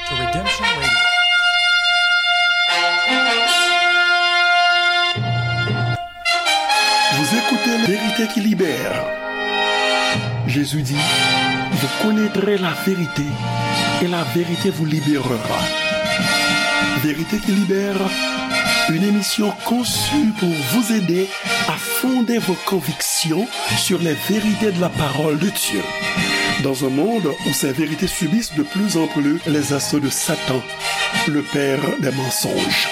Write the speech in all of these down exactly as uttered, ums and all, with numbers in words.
to Redemption Radio. Vous écoutez La Vérité qui libère. Jésus dit, vous connaîtrez la vérité et la vérité vous libérera. Vérité qui libère, une émission conçue pour vous aider à fonder vos convictions sur les vérités de la parole de Dieu. Dans un monde où ces vérités subissent de plus en plus les assauts de Satan, le père des mensonges.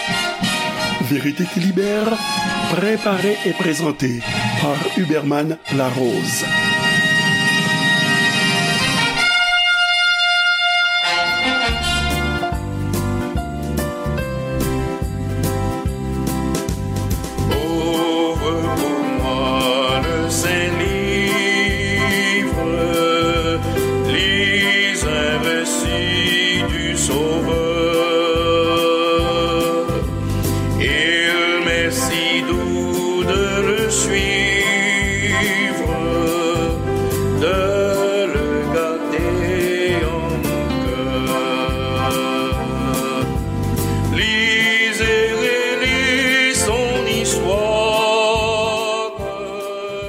Vérité qui libère, préparée et présentée par Huberman Larose. Ouvre pour moi le saint livre, lis un récit du Sauveur. Il m'est si doux de le suivre, de le garder en mon cœur. Lis et relis son histoire.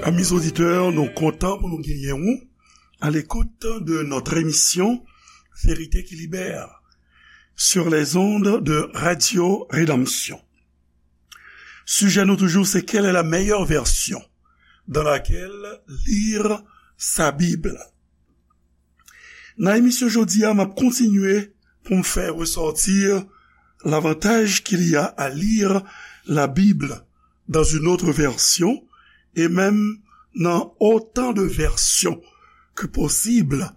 Amis auditeurs, nou kontan pou nou genyen ou à l'écoute de notre émission Vérité qui libère sur les ondes de Radio Rédemption. Sijè nou toujou, se quelle est la meilleure version dans laquelle lire sa Bible. Nan emisyon jodi a, m ap kontinye pou m fè ressortir l'avantage qu'il y a à lire la Bible dans une autre version et même dans autant de versions que possible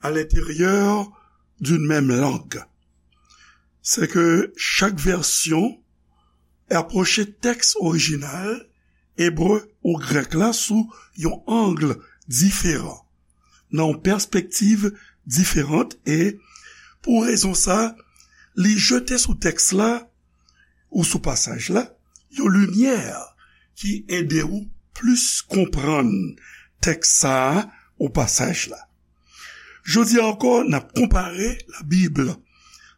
à l'intérieur d'une même langue. C'est que chaque version approche texte original ebre ou grèk la sou yon ang diferan, nan yon pèspektiv diferan, e pou rezon sa, li jete sou tèks la ou sou pasaj la yon limyè ki ede ou plis konprann tèks sa a ou pasaj la. Jodi a ankò, n ap konpare la Bible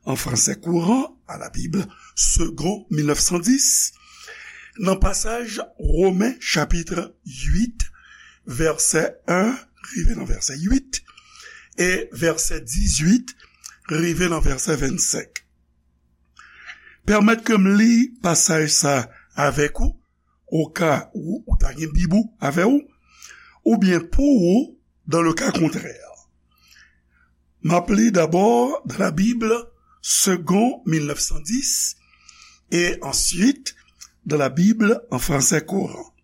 en français courant à la Bible Segond mil nèf san dis, nan pasaj Women chapit uit, vèsè en rive nan vèsè uit, e vèsè dizuit rive nan vèsè vennsenk. Pèmèt ke m li pasaj sa avèk ou, au cas où ou ta gen Bib ou avè ou, oubyen pou ou, dans le cas contraire. M ap li d'abord dans la Bible Segond mil nèf san dis et ensuite dans la Bible en français courant.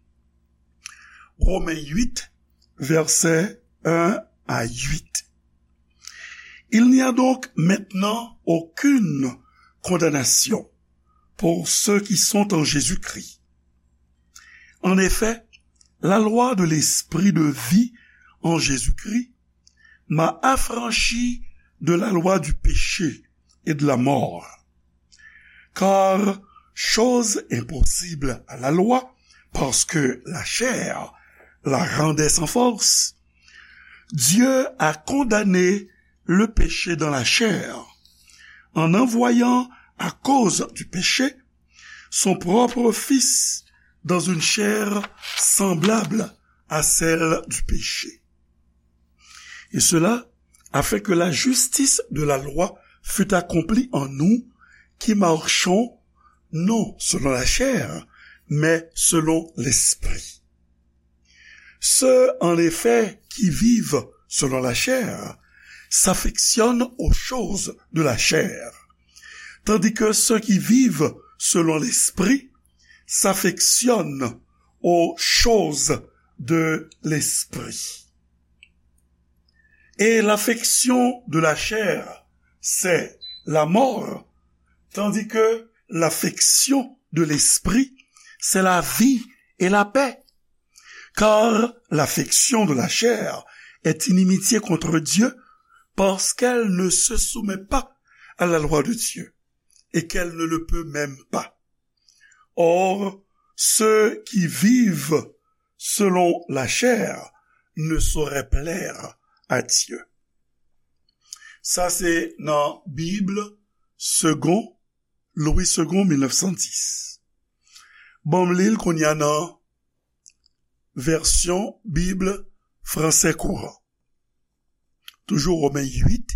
Romains huit, versets un à huit. Il n'y a donc maintenant aucune condamnation pour ceux qui sont en Jésus-Christ. En effet, la loi de l'esprit de vie en Jésus-Christ m'a affranchi de la loi du péché et de la mort. Car chose impossible à la loi, parce que la chair la rendait sans force, Dieu a condamné le péché dans la chair, en envoyant à cause du péché son propre Fils dans une chair semblable à celle du péché. Et cela afin que la justice de la loi fût accomplie en nous qui marchons non selon la chair, mais selon l'esprit. Ceux, en effet, qui vivent selon la chair s'affectionnent aux choses de la chair, tandis que ceux qui vivent selon l'esprit s'affectionnent aux choses de l'esprit. Et l'affection de la chair, c'est la mort, tandis que l'affection de l'esprit, c'est la vie et la paix. Car l'affection de la chair est inimitié contre Dieu, parce qu'elle ne se soumet pas à la loi de Dieu, et qu'elle ne le peut même pas. Or, ceux qui vivent selon la chair ne sauraient plaire à Dieu. Sa se nan Bib Segond, Louis Segond, mil nèf san dis. Ban m li l kounye a nan vèsyon Bib Français Courant. Toujours Romains huit,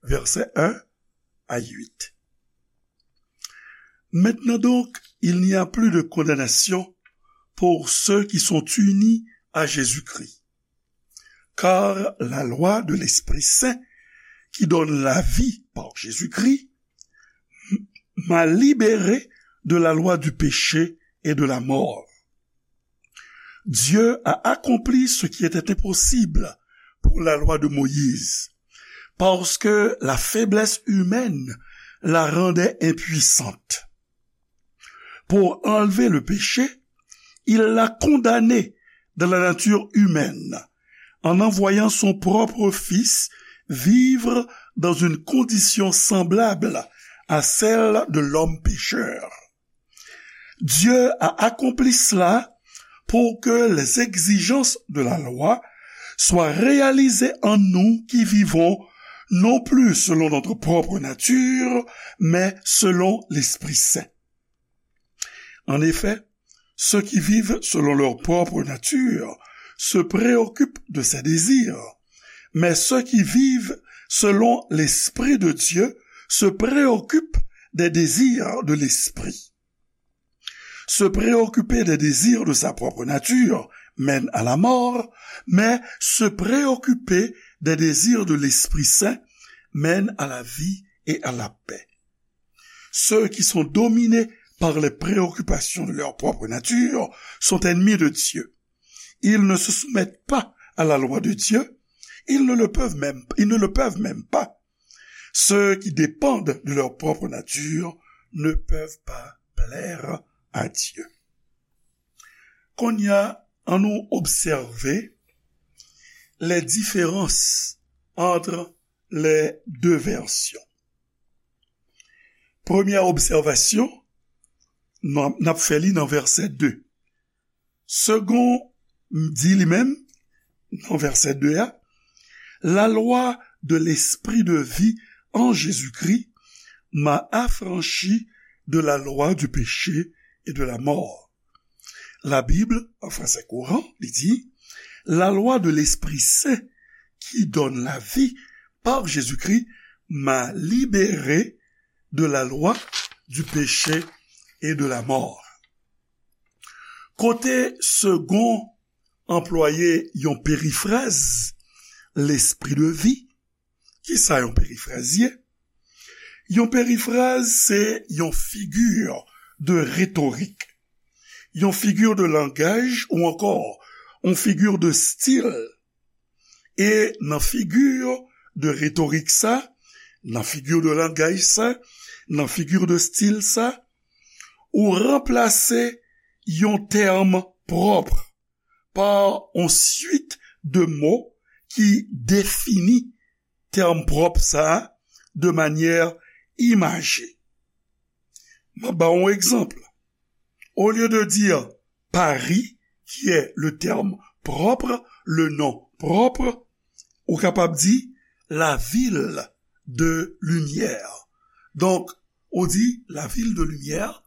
versets un à huit. Maintenant donc, il n'y a plus de condamnation pour ceux qui sont unis à Jésus-Christ. Car la loi de l'Esprit Saint, qui donne la vie par Jésus-Christ, m'a libéré de la loi du péché et de la mort. Dieu a accompli ce qui était impossible pour la loi de Moïse, parce que la faiblesse humaine la rendait impuissante. Pour enlever le péché, il l'a condamné dans la nature humaine, en envoyant son propre Fils vivre dans une condition semblable à celle de l'homme pécheur. Dieu a accompli cela pour que les exigences de la loi soient réalisées en nous qui vivons non plus selon notre propre nature, mais selon l'Esprit Saint. En effet, ceux qui vivent selon leur propre nature se préoccupent de ses désirs, mais ceux qui vivent selon l'Esprit de Dieu se préoccupent des désirs de l'Esprit. Se préoccuper des désirs de sa propre nature mène à la mort, mais se préoccuper des désirs de l'Esprit Saint mène à la vie et à la paix. Ceux qui sont dominés par les préoccupations de leur propre nature sont ennemis de Dieu. Ils ne se soumettent pas à la loi de Dieu, ils ne le peuvent même, ils ne le peuvent même pas. Ceux qui dépendent de leur propre nature ne peuvent pas plaire à Dieu. Kounye a, annou obsève les différences entre les deux versions. Premyè obsèvasyon, n ap fè li nan vèsè de. Segond di li menm, nan vèsè de a, la loi de l'esprit de vie en Jésus-Christ m'a affranchi de la loi du péché et de la mort. La Bible, en français courant, li di, la loi de l'Esprit Saint qui donne la vie par Jésus-Christ m'a libéré de la loi du péché et de la mort. Kote Segond anplwaye yon perifraz, l'esprit de vie. Kisa yon perifraz ye? Yon perifraz se yon figi de retorik, yon figi de langaj ou ankò yon figi de stil. E nan figi de retorik sa, nan figi de langaj sa, nan figi de stil sa, ou ranplase yon tèm pwòp pa yon swit de mo ki defini tèm pwòp sa a de manyè imaje. M ap ba w yon egzanp. Au lieu de dire Paris, qui est le terme propre, le nom propre, ou kapab di la ville de lumière. Donk, ou di la ville de lumière,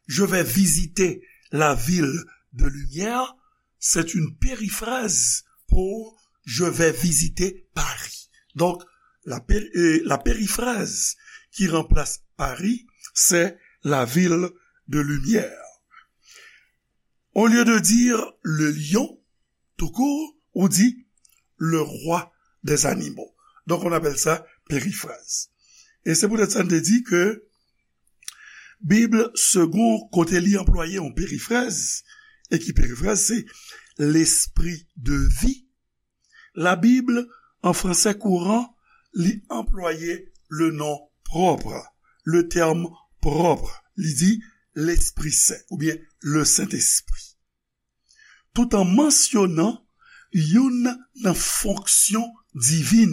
je vais visiter la ville de lumière, c'est une périphrase pour je vais visiter Paris. Donc, la, péri- euh, la périphrase qui remplace Paris, c'est la ville de lumière. Au lieu de dire le lion, tout court, ou di le roi des animaux. Donc, on appelle ça périphrase. E se poutèt sa n te di ke Bib Segond, kote li anplwaye yon perifraz, e ki perifraz se l'esprit de vie, la Bible, en français courant, li anplwaye le nom propre, le terme propre, li di l'Esprit Saint oubyen le Saint-Esprit. Tout an mansyonan youn nan fonksyon divin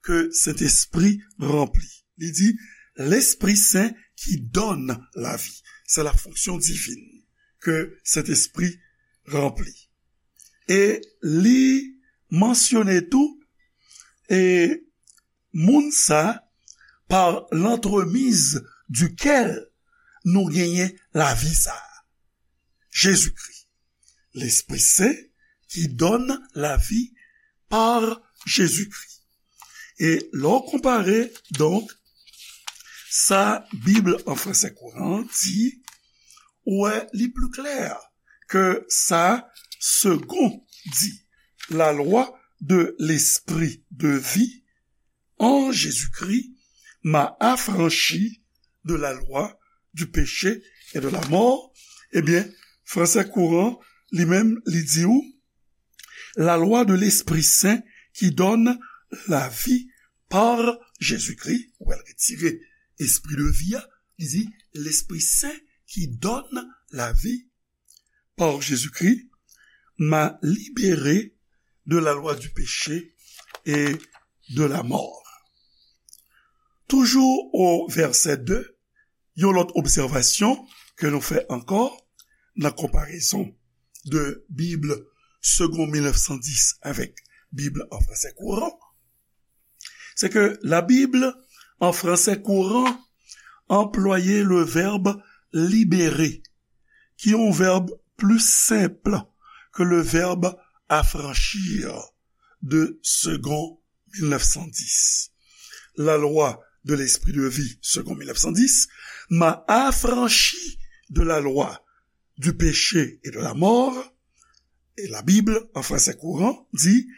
ke Sentespri ranpli. Li di, L'Esprit Saint qui donne la vie. Se la fonksyon divin ke Sentespri ranpli. E li mansyone tou, e Moun sa, par l'entremise duquel nou genyen lavi sa a. Jezikri. Lespri Sen ki donn lavi par Jezikri. E lè w konpare, donk, sa Bib an fransè kouran di, ou wè li pli klè ke sa Segond di, la loi de l'esprit de vie en Jésus-Christ m'a affranchi de la loi du péché et de la mort. Ebyen, fransè kouran, li menm, li di w, la loi de l'Esprit Saint qui donne la vie par Jésus-Christ, ou wè l retire espri de vi a, li di, l'Esprit Saint qui donne la vie par Jésus-Christ m'a libéré de la loi du péché et de la mort. Toujou o vèsè de, yon lòt obsèvasyon ke nou fè ankò nan konparezon de Bib Segond mil nèf san dis avèk Bib an fransè kouran, se ke la Bib an fransè kouran anplwaye le vèb libérer, ki yon vèb pli senp ke le vèb affranchir de Segond mil nèf san dis. La loi de l'esprit de vie, Segond mil nèf san dis, m'a affranchi de la loi du péché et de la mort. Et la Bible, en français courant, dit,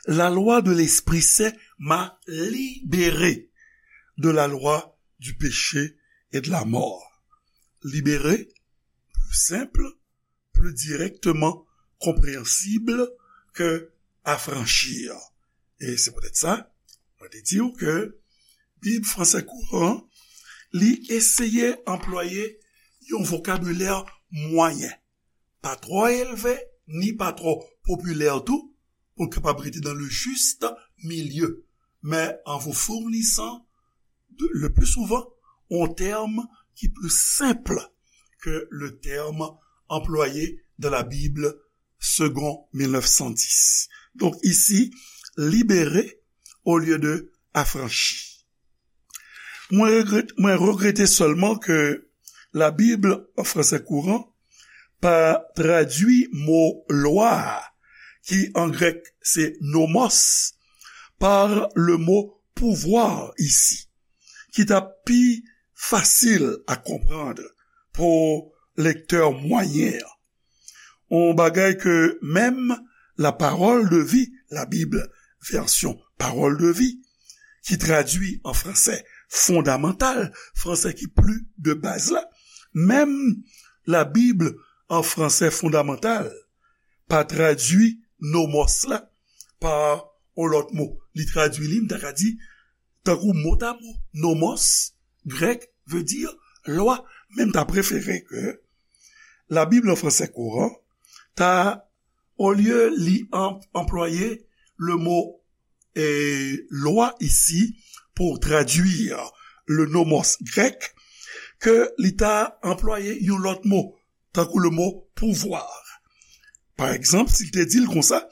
la loi de l'Esprit Saint m'a libéré de la loi du péché et de la mort. Libéré, pli senp, pli dirèkteman konpreyansib ke affranchir. E se poutèt sa, mwen te di w ke Bib fransè kouran, li eseye anplwaye yon vokabilè mwayen. Pa twò elve, ni pa twò popilè tou, pou l kapab rete dans le juste milieu, mais en vous fournissant, de- le plus souvent, un terme qui est plus simple que le terme employé dans la Bible Segond mil nèf san dis. Donc ici, libérer au lieu de affranchi. Mwen regrèt, mwen regrete sèlman ke la Bib an fransè kouran pa tradui mo lwa a, ki an grèk se nomos, par le mot pouvoir ici, ki t ap pi fasil a konprann pou lektè mwayen an. Yon bagay ke menm la Parole de vie, la Bible version Parole de vie, ki tradui an fransè fondamantal, fransè ki pli de baz la, menm la Bible an fransè fondamantal pa tradui nomos la pa yon lòt mo. Li tradui li, m ta ka di, tankou motamo, nomos, grèk, vle di lwa, men m ta prefere ke la Bib an fransè kouran ta, olye li an- anplwaye le mo eh, lwa isi pou tradui le nomos grèk, ke li ta anplwaye yon lòt mo, tankou le mo pouvoir. Pa egzanp, si l te di l konsa,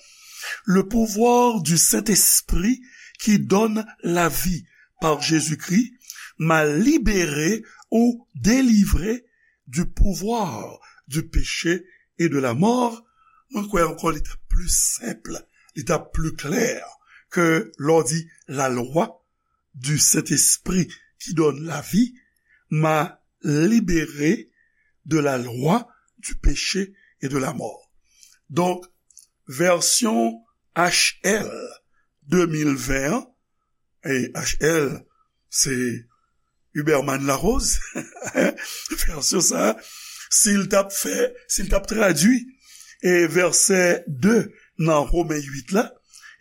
le pouvoir du Saint-Esprit qui donne la vie par Jésus-Christ m'a libéré ou délivré du pouvoir du péché et de la mort, mwen kwè ankò li t ap pli senp, li t ap pli klè ke lè w di la loi du Saint-Esprit qui donne la vie m'a libéré de la loi du péché et de la mort. Donk, vèsyon H L de mil ven an, e H L, se Huberman Larose, vèsyon sa a, si l t ap fè, si l t ap tradui, e vèsè de nan Women uit la,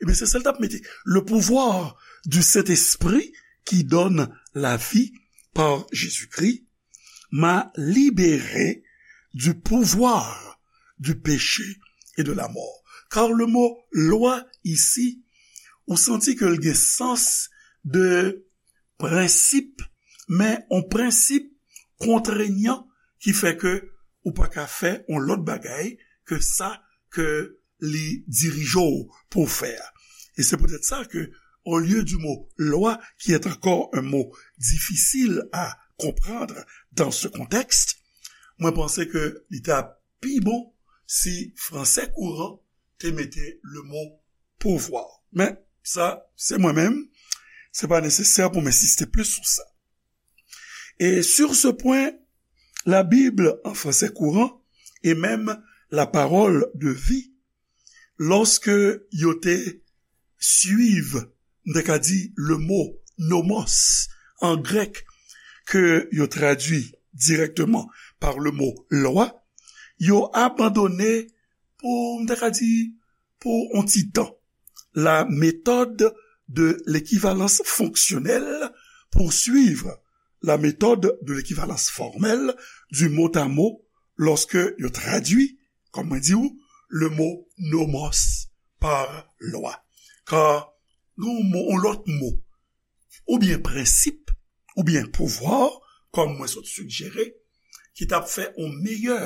ebyen, se sa l t ap mete. Le pouvoir du Saint-Esprit qui donne la vie par Jésus-Christ m'a libéré du pouvoir du péché et de la mort. Car le mot loi ici, ou santi ke l gen sans de prensip, men yon prensip kontrenyan ki fè ke ou pa ka fè yon lòt bagay ke sa ke li dirije w pou w fè a. E se poutèt sa ke au lieu du mot loi, qui est encore un mot difficile à comprendre dans ce contexte, mwen panse ke li ta pi bon si franse kouran te mete le mo pouvoir. Men, sa, se mwen menm, se pa nesesè pou m ensiste plis sou sa. Et sur ce point, la Bible en français courant et même la parole de vie, lorsque yo te suiv, m te ka di, le mot nomos en grec, ke yo tradui directement par le mot loi, yo abandone pou, m te ka di, pou yon ti tan, la méthode de l'équivalence fonctionnelle pour suivre la méthode de l'équivalence formelle du mot à mot lorsque yo tradui, kòm mwen di w, le mot nomos par loi. Kar gen yon mo, yon lòt mo, oubyen prensip, oubyen pouvwa, kòm mwen sot sigjere, ki t ap fè yon meyè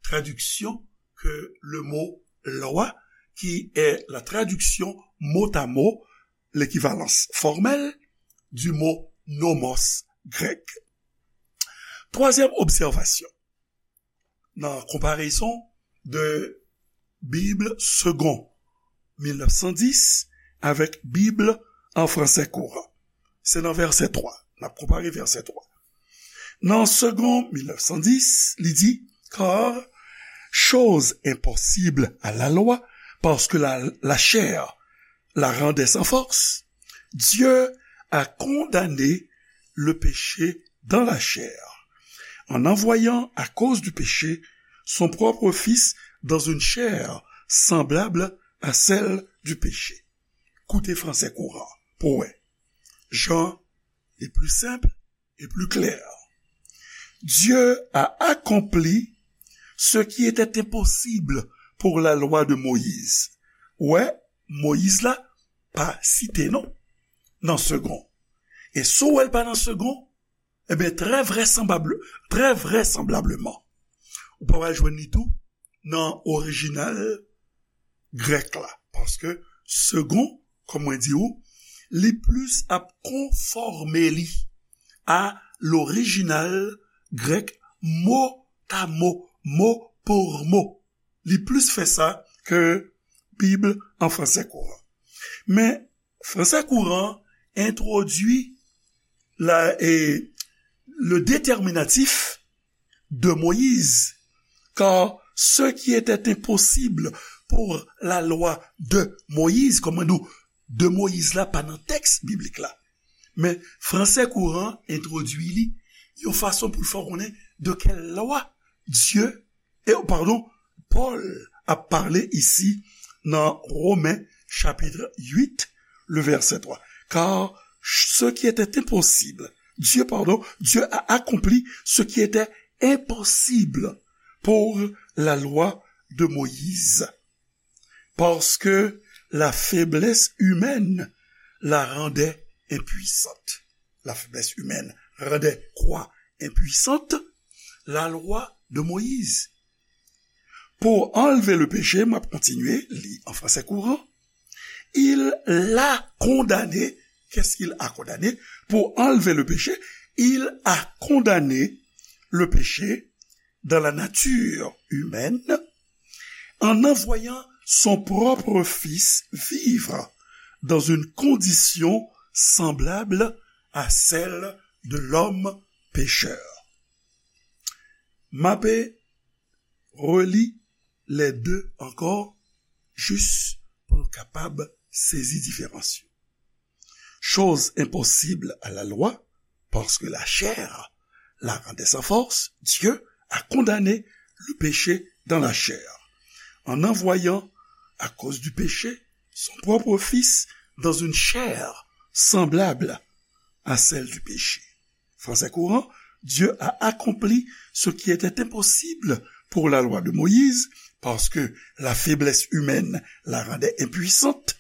tradiksyon ke le mot loi, qui est la traduction mot à mot, l'équivalence formelle du mot nomos grec. Twazyèm obsèvasyon, nan konparezon de Bib Segond mil nèf san dis avèk Bib an franse kouran. Se nan vèsè twa. N ap konpare vèsè twa. Nan Segond mil nèf san dis, li di, car chose impossible à la loi, parce que la, la chair la rendait sans force, Dieu a condamné le péché dans la chair, en envoyant à cause du péché son propre Fils dans une chair semblable à celle du péché. Koute franse kouran pou wè. Jan li pli senp e pli klè. Dieu a accompli ce qui était impossible pour la loi de Moïse. Wè, Moyiz la pa site non nan Segond. E si w wè l pa nan Segond, ebyen, trè vrèsanbab-, trè vrèsanblableman, ou pa pral jwenn li tou nan orijinal grèk la. Paske Segond, kòm mwen di w, li plis ap konfòme li a lorijinal grèk mo ta mo, mo pour mo. Li plis fè sa ke Bib an franse kouran. Men, franse kouran entwodui la, e, le déterminatif de Moïse, car ce qui était impossible pour la loi de Moïse, kòm mwen di w, de Moïse la pa nan tèks biblik la. Men franse kouran entwodui li yon fason pou l fè w konnen de quelle loi Dieu, e, padon, Pòl ap pale isi nan Romen chapit uit, le vèsè twa. Car ce qui était impossible, Dieu, pardon, Dieu a accompli ce qui était impossible pour la loi de Moïse. Parce que la faiblesse humaine la rendait impuissante. La faiblesse humaine rendait quoi impuissante? La loi de Moïse. Pour enlever le péché, m ap kontinye li an franse kouran. Il l'a condamné. Qu'est-ce qu'il a condamné? Pour enlever le péché, il a condamné le péché dans la nature humaine en envoyant son propre Fils vivre dans une condition semblable à celle de l'homme pécheur. M ape reli les deux encore, jis pou nou kapab sezi diferans yo. Chose impossible à la loi, parce que la chair la rendait sans force, Dieu a condamné le péché dans la chair, en envoyant, à cause du péché, son propre Fils dans une chair semblable à celle du péché. Français courant, Dieu a accompli ce qui était impossible pour la loi de Moïse, parce que la faiblesse humaine la rendait impuissante.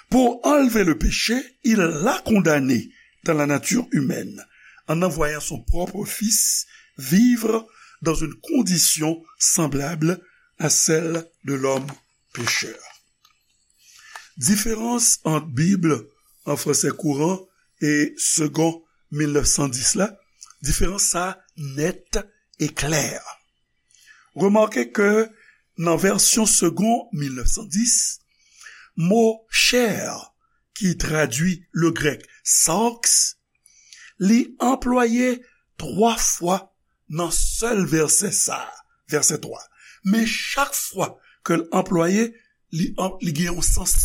Pour enlever le péché, il l'a condamné dans la nature humaine, en envoyant son propre Fils vivre dans une condition semblable à celle de l'homme pécheur. Diferans ant Bib an fransè kouran e segon mil nèf san dis la, diferans sa nèt e klè. Remake ke nan vèsyon segon mil nèf san dis, mo chè ki tradui le grèk sarx, li anplwaye twa fwa nan sèl vèsè sa a, vèsè twa. Men chak fwa ke l anplwaye, li, an- li gen yon sans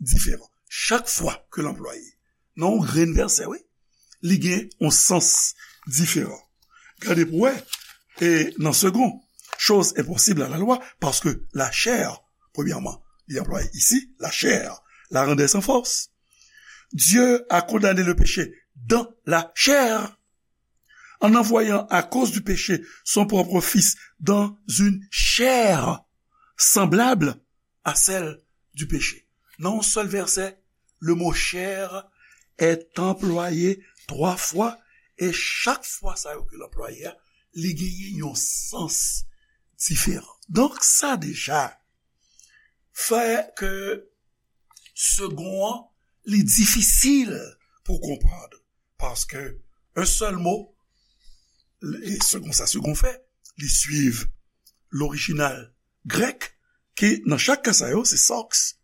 diferan. Chak fwa ke l anplwaye. Nan yon grenn vèsè, wi. Li gen yon sans diferan. Gade pou wè, e nan segon, chose impossible à la loi, parce que la chair, premièrement, li anplwaye isi, la chair, la rendait sans force. Dieu a condamné le péché dans la chair, en envoyant à cause du péché son propre Fils dans une chair semblable à celle du péché. Nan yon sèl vèsè, le mot chair est employé twa fwa, e chak fwa sa yo ke l anplwaye a, li genyen yon sans diferan. Donk, sa deja fè ke segon an, li difisil pou konprann. Paske yon sèl mo, e segon sa segon fè, li swiv lorijinal grèk, ki nan chak ka sa yo, se sarx.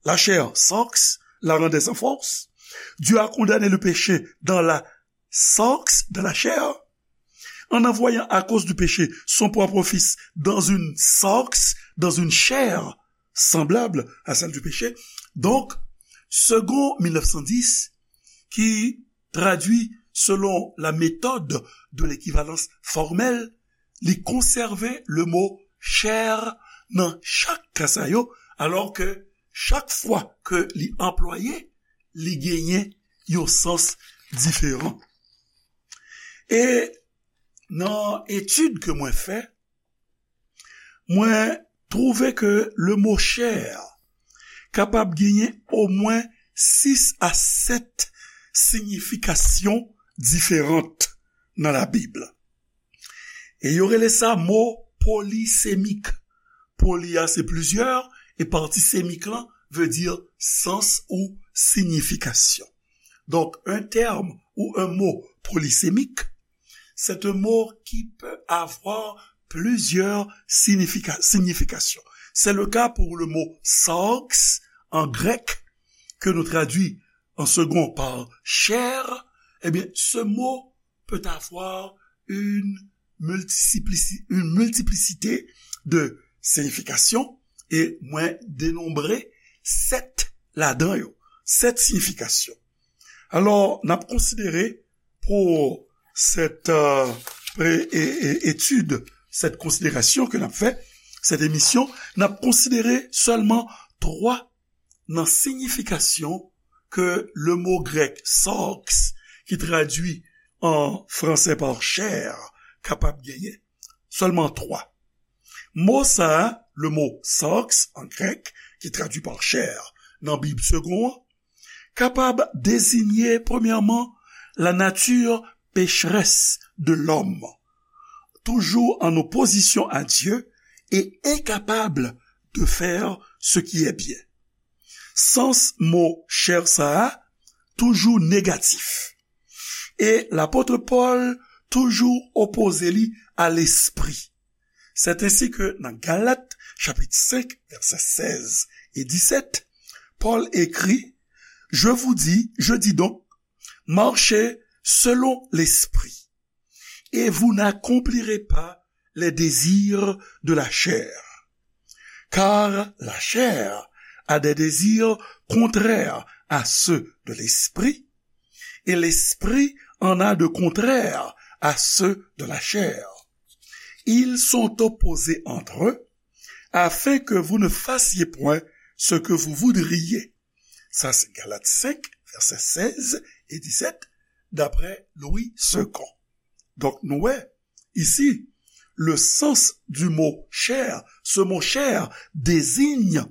La chair, sarx, la rendait sans force. Dieu a condamné le péché dans la sarx, dans la chair, en envoyant à cause du péché son propre Fils dans une sarx, dans une chair semblable à celle du péché. Donk, segon mil nèf san dis, ki tradui selon la méthode de l'équivalence formelle, li konsève le mo chair nan chak ka sa yo, alò ke chak fwa ke li anplwaye, li genyen yon sans diferan. E nan etid ke mwen fè, mwen twouve ke le mo chair kapab genyen omwen sis a sèt siyifikasyon diferan nan Labib. E yo rele sa mo polisemik. Poli a se plizyè, e pati semik lan vle di sans ou siyifikasyon. Donc, un terme ou un mot polysémique, c'est un mot qui peut avoir plusieurs signifika- significations. C'est le cas pour le mot sarx en grec, que nous traduit en second par chair. Eh bien, ce mot peut avoir une multiplici- une multiplicité de significations, e mwen denonbre sèt ladan yo, sèt siyifikasyon. Alò, n ap konsidere pou sèt, euh, pre- e- e- etid, sèt konsiderasyon ke n ap fè, sèt emisyon, n ap konsidere sèlman twa nan siyifikasyon ke le mo grèk sarx, ki tradui an fransè pa chair, kapab genyen. Sèlman twa. Mo sa a, le mot sarx an grèk, ki tradui pa chair nan Bib segon an, kapab deziye, premyèman, la nature pécheresse de l'homme, toujours en opposition à Dieu et incapable de faire ce qui est bien. Sans mo chair sa a toujou negatif. E lapot Pòl toujou opoze li a lespri. C'est ainsi que dans Galates chapitre cinq, versets seize et dix-sept, Paul écrit, je vous dis, je dis donc, marchez selon l'esprit, et vous n'accomplirez pas les désirs de la chair. Car la chair a des désirs contraires à ceux de l'esprit, et l'esprit en a de contraires à ceux de la chair. Ils sont opposés entre eux, afin que vous ne fassiez point ce que vous voudriez. Sa se Galat senk, vèsè sèz e disèt, daprè Louis Segond. Donk, nou wè, isi, le sens du mot chair, ce mot chair désigne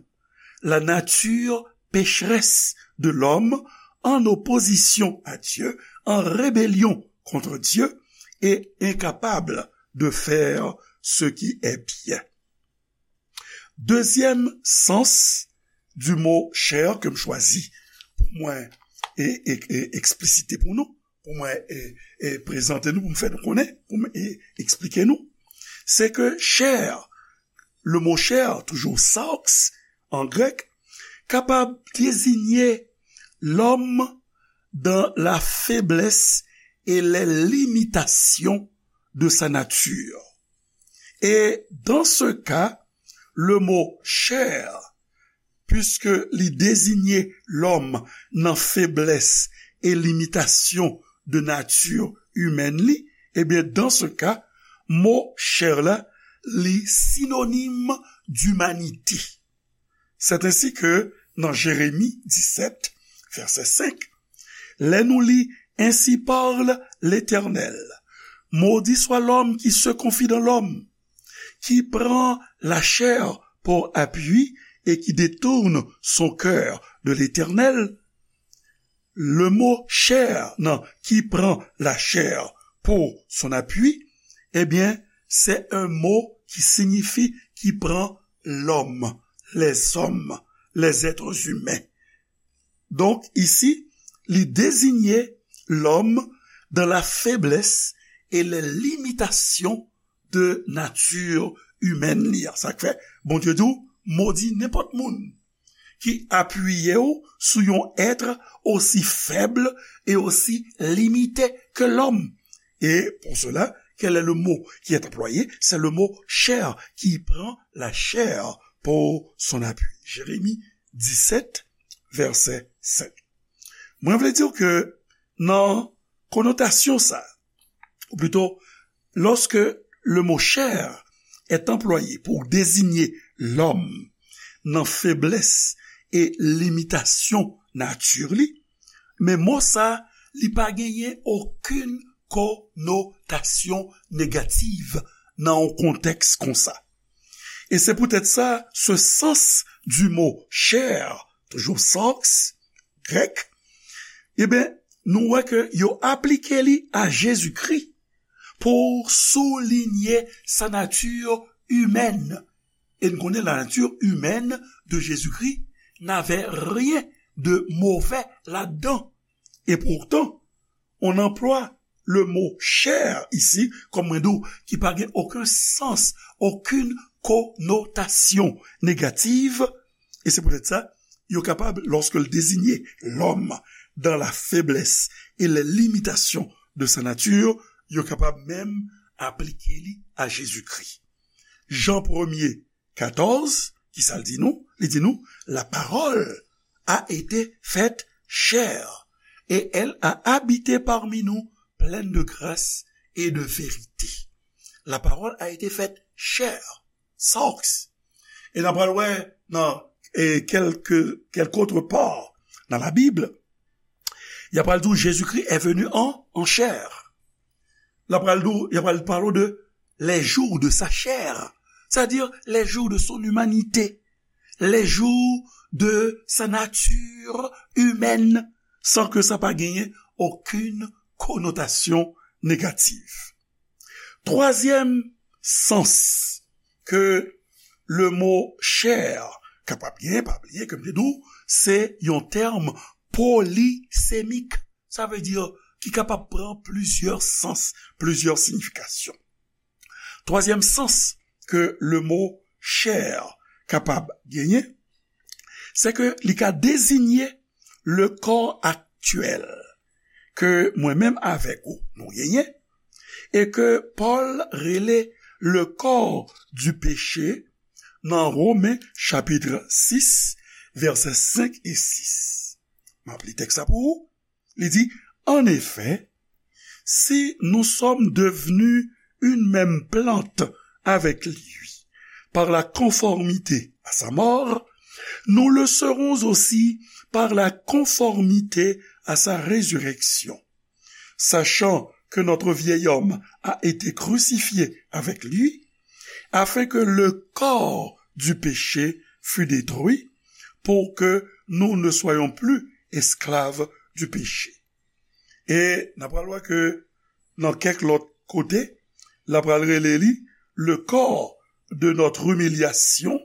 la nature pécheresse de l'homme en opposition à Dieu, en rébellion contre Dieu et incapable de faire ce qui est bien. Dezyèm sans du mot chair ke m chwazi pou mwen e, e, e, eksplisite pou nou, pou mwen e, e, prezante nou, pou m fè nou konnen, pou m e, eksplike nou. Se ke chè, le mo chè, toujou sarx an grèk, kapab deziye lòm dans la faiblesse et les limitations de sa nature. Et dans ce cas, le mot chair, puisque li désigne l'homme nan feblès e limitasyon de nati imèn li, ebyen, dans ce cas, mo chair la, li sinonim d'imanite. C'est ainsi que nan Jérémie dix-sept, verset cinq, lè nou li, Ainsi parle l'Éternel, maudit soit l'homme qui se confie dans l'homme, qui prend la chair pour appui et qui détourne son cœur de l'Éternel. Le mot chair, non, qui prend la chair pour son appui, eh bien, c'est un mot qui signifie qui prend l'homme, les hommes, les êtres humains. Donk, isi, li deziye lòm dans la faiblesse et les limitations de nature humaine li an. Sa k fè, Bondye di w, modi nenpòt moun ki apiye w sou yon èt osi fèb e osi limite ke lòm. Et pour cela, quel est le mot qui est employé? C'est le mot chair, qui prend la chair pour son appui. Jérémie dix-sept, verset cinq. Mwen vle di w ke nan konotasyon sa, ou plito, lorsque le mot chair est employé pour désigner l'homme nan feblès e limitasyon nati li, men mo sa, li pa genyen okenn konotasyon negatif nan yon kontèks konsa. Et c'est peut-être ça, ce sens du mot chair, toujours sarx, grèk, ebyen, nou wè ke yo aplike li a Jezikri pou soulinye sa nati imèn. E n konnen la nature humaine de Jésus-Christ n'avait rien de mauvais là-dedans. Et pourtant, on emploie le mot chair ici, kòm mwen di w, ki pa gen okenn sans, okenn konotasyon negatif, e se poutèt sa, yo kapab, lorsque l désigne l'homme dans la faiblesse et les limitations de sa nature, yo kapab menm aplike li a Jezikri. Jan premye, katòz, ki sa l di nou? Li di nou, la parole a été faite chair, et elle a habité parmi nous, pleine de grâce et de vérité. La parole a été faite chair, sarx. E n a pral wè nan, e, kèlke, kèlke otre pa nan Labib, y a pral di w, Jésus-Christ est venu en, en chair. L a pral di w, y a pral pale w de les jours de sa chair, c'est-à-dire les jours de son humanité, les jours de sa nature humaine, san ke sa pa genyen okenn konotasyon negatif. Twazyèm sans ke le mo chair kapab genyen, pa bliye ke m te di w, se yon tèm polisemik. Sa vle di ki kapab pran plizyè sans, plizyè siyifikasyon. Twazyèm sans ke le mo chair kapab genyen, se ke li ka deziye le kò aktyèl ke mwen menm avèk ou nou genyen, e ke Pòl rele le corps du péché nan Women chapit sis, vèsè senk e sis. M ap li tèks la pou ou. Li di, En effet, si nous sommes devenus une même plante avec lui par la conformité à sa mort, nous le serons aussi par la conformité à sa résurrection. Sachant que notre vieil homme a été crucifié avec lui, afin que le corps du péché fût détruit, pour que nous ne soyons plus esclaves du péché. E n ap pral wè ke nan kèk lòt kote, l ap pral rele li le corps de notre humiliation,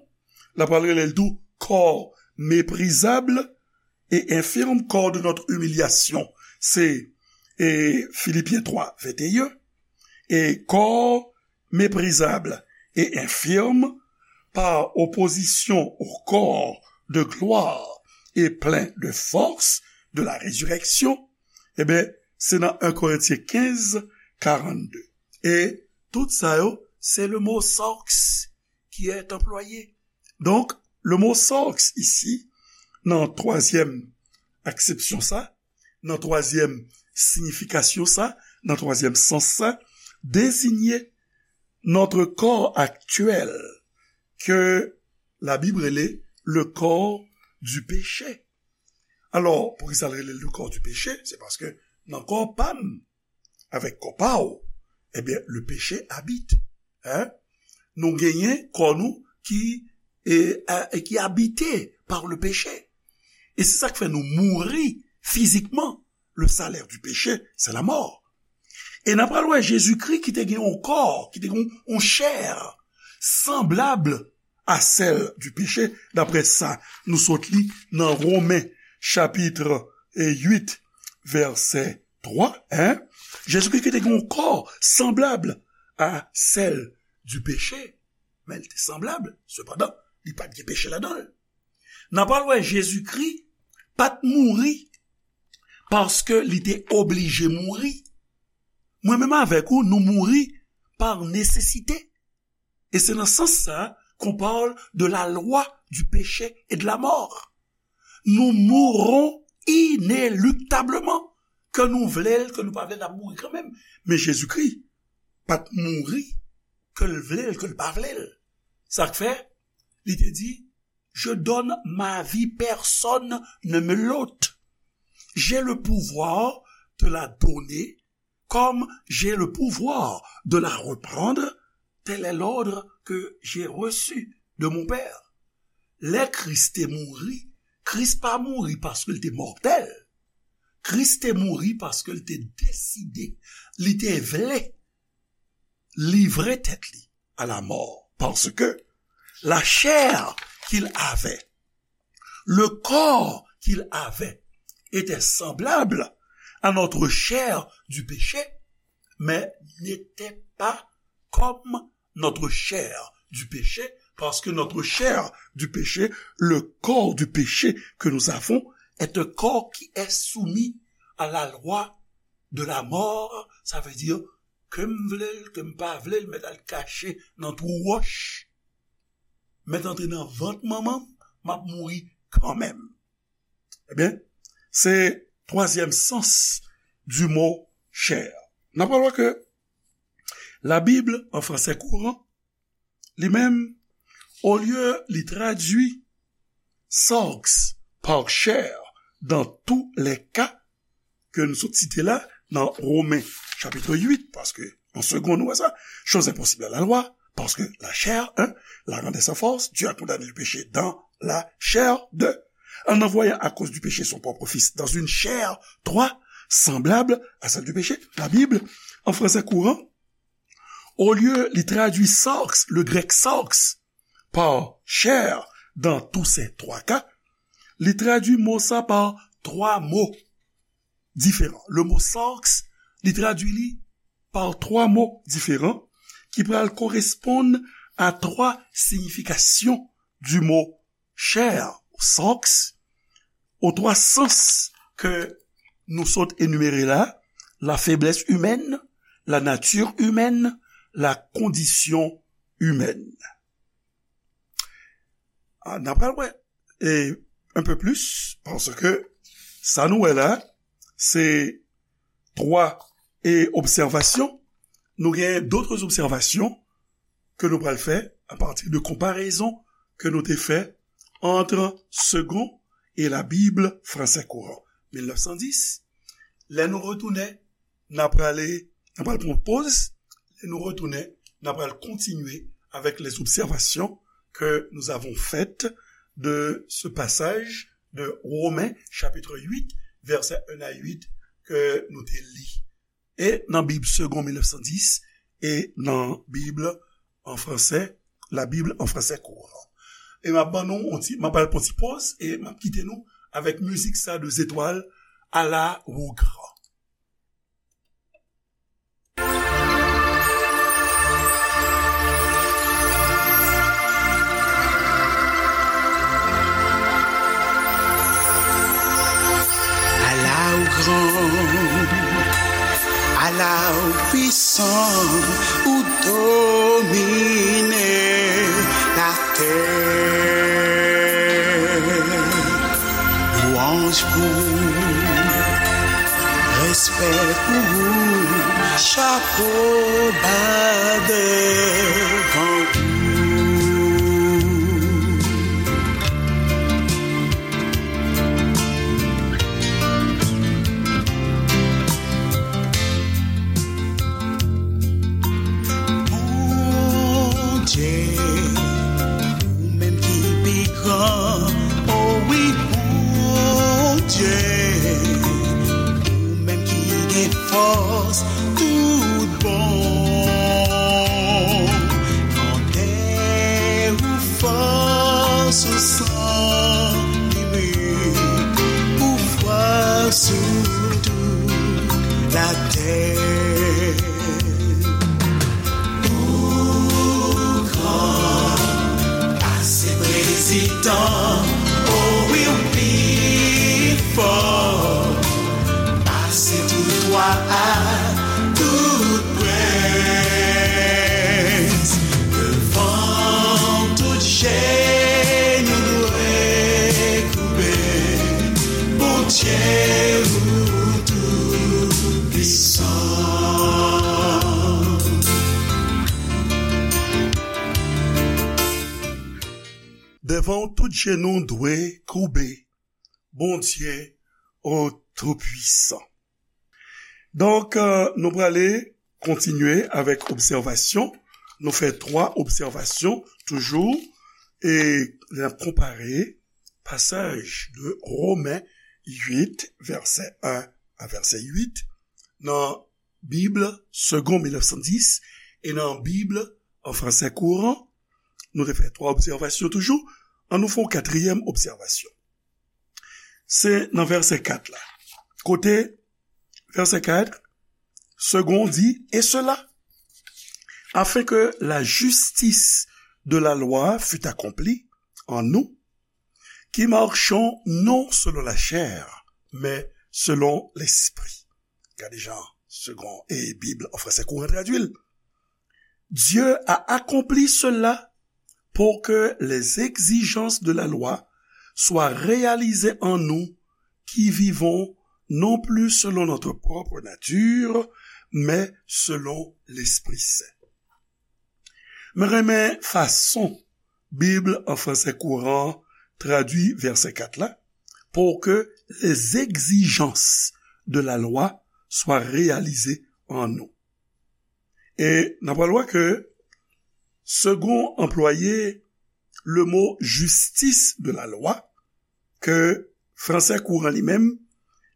l ap pral rele l tou corps méprisable, et infirme corps de notre humiliation. C'est, et Philippiens trois, vingt et un. Et corps méprisable et infirme par opposition au corps de gloire et plein de force de la résurrection. Ebyen, se nan un Corinthiens quinze, quarante-deux. E tout sa yo, se le mot sarx qui est employé. Donk, le mot sarx isi, nan twazyèm aksepsyon sa, nan twazyèm siyifikasyon sa, nan twazyèm sans sa, désigne notre corps actuel que la Bible rele le corps du péché. Alò, poukisa l rele le corps du péché? Se paske nan kò pa m, avèk kò pa w, ebyen, le péché habite. Hein? Nou genyen kò nou ki, e, a, e ki abite par le péché. E se sa k fè nou mouri fizikman. Le salaire du péché, c'est la mort. E n ap pral wè Jezikri ki te gen yon kò, ki te gen yon chè sanblab a sèl di peche, daprè sa nou sot li nan Women chapit uit, vèsè twa, en. Jezikri ki te gen yon kò sanblab a sèl di peche, men li te sanblab, sepandan, li pa t gen peche ladan l. N ap pral wè Jezikri pa t mouri paske li te oblije mouri. Mwen menm avèk ou, nou mouri pa nesesite. E se nan sans sa qu'on parle de la loi du péché et de la mort. Nous mourrons inéluctablement. Ke nou vle l, ke nou pa vle l, n ap mouri kanmenm. Men Jezikri pa t mouri, ke l vle l, ke l pa vle l. Sa k fè, li te di, Je donne ma vie, personne ne me l'ôte. J'ai le pouvoir de la donner comme j'ai le pouvoir de la reprendre. Tel est l'ordre que j'ai reçu de mon Père. Lè Kris te mouri, Kris pa mouri paske l te mòtèl. Kris te mouri paske l te deside, li te vle livre tèt li à la mort, parce que la chair qu'il avait, le corps qu'il avait, était semblable à notre chair du péché, mais n'était pas comme notre chair du péché, parce que notre chair du péché, le corps du péché que nous avons, est un corps qui est soumis à la loi de la mort, ça veut dire ke m vle l, ke m pa vle l, mèt al kache nan twou wòch, mèt antre nan vant manman m, m ap mouri kanmenm. Ebyen, se twazyèm sans di mo chè. N ap pral wè ke la Bible en français courant, li menm, olye li tradui sarx par chair dans tous les cas, ke nou sot site la, nan Women chapit uit, paske an segonn nou wè sa, chose impossible à la loi, parce que la chair, un, la rendait sans force, Dieu a condamné le péché dans la chair, deux, en envoyant à cause du péché son propre Fils dans une chair, trois, semblable à celle du péché. La Bible, en français courant, olye li tradui sarx, le grec sarx, par chair dans tous ces trois cas, li tradui mo sa pa twa mo diferan. Le mo sarx, li tradui li pa twa mo diferan ki pral koresponn a twa siyifikasyon di mo chair, sarx, aux trois sens ke nou sot enimere la, la faiblesse humaine, la nature humaine, la condition humaine. Ah, n ap pral wè, e, un peu plus, paske sa nou wè la, se twa, e, obsèvasyon. Nou gen d'autres observations ke nou pral fè à partir de comparaison ke nou te fè entre Segond et la Bible français courant, mil nèf san dis. Lè nou retounen, n ap prale, n ap pral pran poz. Lè nou retounen, n ap pral kontinye avec les observations que nous avons faites de ce passage de Romains chapitre huit, versets un à huit, ke nou te li. E nan Bib Segond mil nèf san dis, e nan Bib an fransè, la Bible en français courant. E m ap ban nou yon ti, m ap al pran ti poz, e m ap kite nou avèk mizik sa de zetwal, Ala ou gran. Ala ou gran, ala ou pwisan, ou domine latè. Lwanj pou ou, respè pou ou, chapo ba devan ou. Bondye, ou menm ki pi gran, o wi, Bondye, ou menm ki gen fòs tout bon. Nan tè ou fòs ou san limit, ou fwa sou tout latè. Ou gran pase prezidan, o wi, ou pi fò pase tout wa ak tout prens. Devan w tout jenou dwe koube, Bondye ou toupwisan. Devan w tout jenou dwe koube, Bondye ou toupwisan. Donk, euh, nou prale kontinye avèk obsèvasyon. Nou fè twa obsèvasyon toujou. E n ap konpare pasaj de Women uit, vèsè en a vèsè uit, nan Bib Segond mil nèf san dis e nan Bib an fransè kouran. Nou te fè twa obsèvasyon toujou. An nou fè yon katriyèm obsèvasyon. Se nan vèsè kat la. Kote vèsè kat, Segond di, et cela, afin que la justice de la loi fût accomplie en nous, qui marchons non selon la chair, mais selon l'esprit. Gade jan Segond e Bib an fransè kouran tradui l. Dieu a accompli cela pour que les exigences de la loi soient réalisées en nous qui vivons non plus selon notre propre nature, mais selon l'Esprit Saint. Mwen renmen fason Bib an fransè kouran tradui vèsè kat la, pour que les exigences de la loi soient réalisées en nous. E n ap wè ke Segond anplwaye le mo justice de la loi, ke fransè kouran li menm,